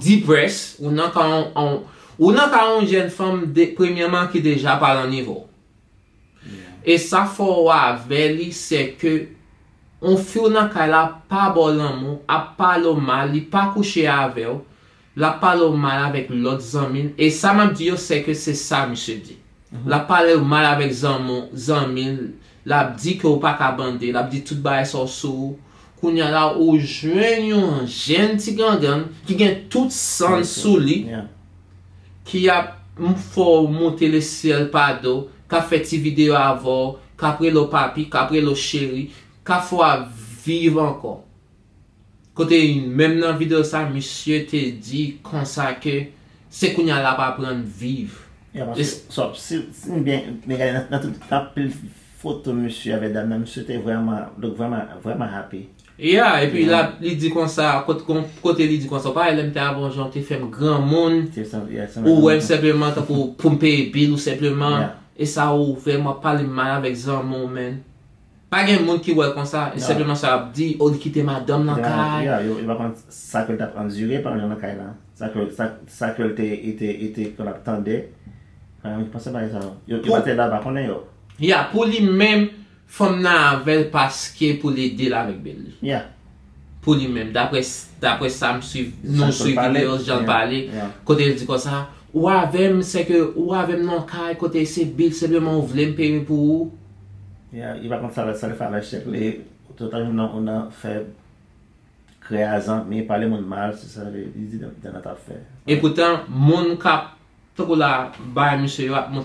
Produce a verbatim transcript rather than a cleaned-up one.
depressed, ou nan ka yon, yon- ou nan ka yon jèn fanm de, premyèman ki deja pa nan nivo. E sa fè w avè li, se ke yon fi w nan kay la pa ba w lanmou, ap pale w mal, li pa kouche avè w, l ap pale w mal avèk lòt zanmi l. E sa m ap di yo, se ke se sa misye di. L ap pale w mal avèk zanmi, zanmi l, l ap di ke w pa ka bande, l ap di tout bagay sa w sou ou. Kounye a la, ou jwenn yon jèn ti gangann ki gen tout san l sou li, ki ap m- fè w monte lesyèl pa do, k ap fè ti videyo avè w, k ap rele w papi, k ap rele w cheri, k ap fè w ap viv ankò. Kote menm nan videyo sa, misye te di konsa ke se kounye a l ap aprann viv. Yeah, paske, so, si, si m byen, byen gade nan, nan tout anpil foto misye avèk dam nan, misye te vrèman, look vrèman, vrèman happy. Yeah, epi la, li di konsa, kot- kon- kote li di konsa, ou pa wè lè m te avè w, jan w te fè m granmoun, ou wè m senpleman tankou pou m peye bil ou senpleman, e sa ou fè m ap pale mal avèk zanmi w, man. Pa gen moun ki wè l konsa, e senpleman sa y ap di, o, li kite madanm nan kay. Yeah, yo, yo pa konn sa ke l t ap andire pandan l nan kay la. Sa ke, sa, sa ke l te, li te, li te konn ap tande. Mwen panse bagay sa yo. Yo, yo pa te la, pa konnen yo. Ya, pou li menm, fanm nan avè l paske pou l ede l avèk bil li. Ya. Pou li menm, daprè, daprè sa m swiv, nou swiv videyo, jan l pale, kote l di konsa, ou avè m, se ke ou avè m nan kay, kote se bil, senpleman ou vle m peye pou ou. Ya, li pa konn sa, sa l fè avèk chèk li, total ou nan, ou nan fè krè a zanmi, pale moun mal, se sa li di dan, dan nan t ap fè. E poutan, moun k ap, tankou la, bay misye yo ap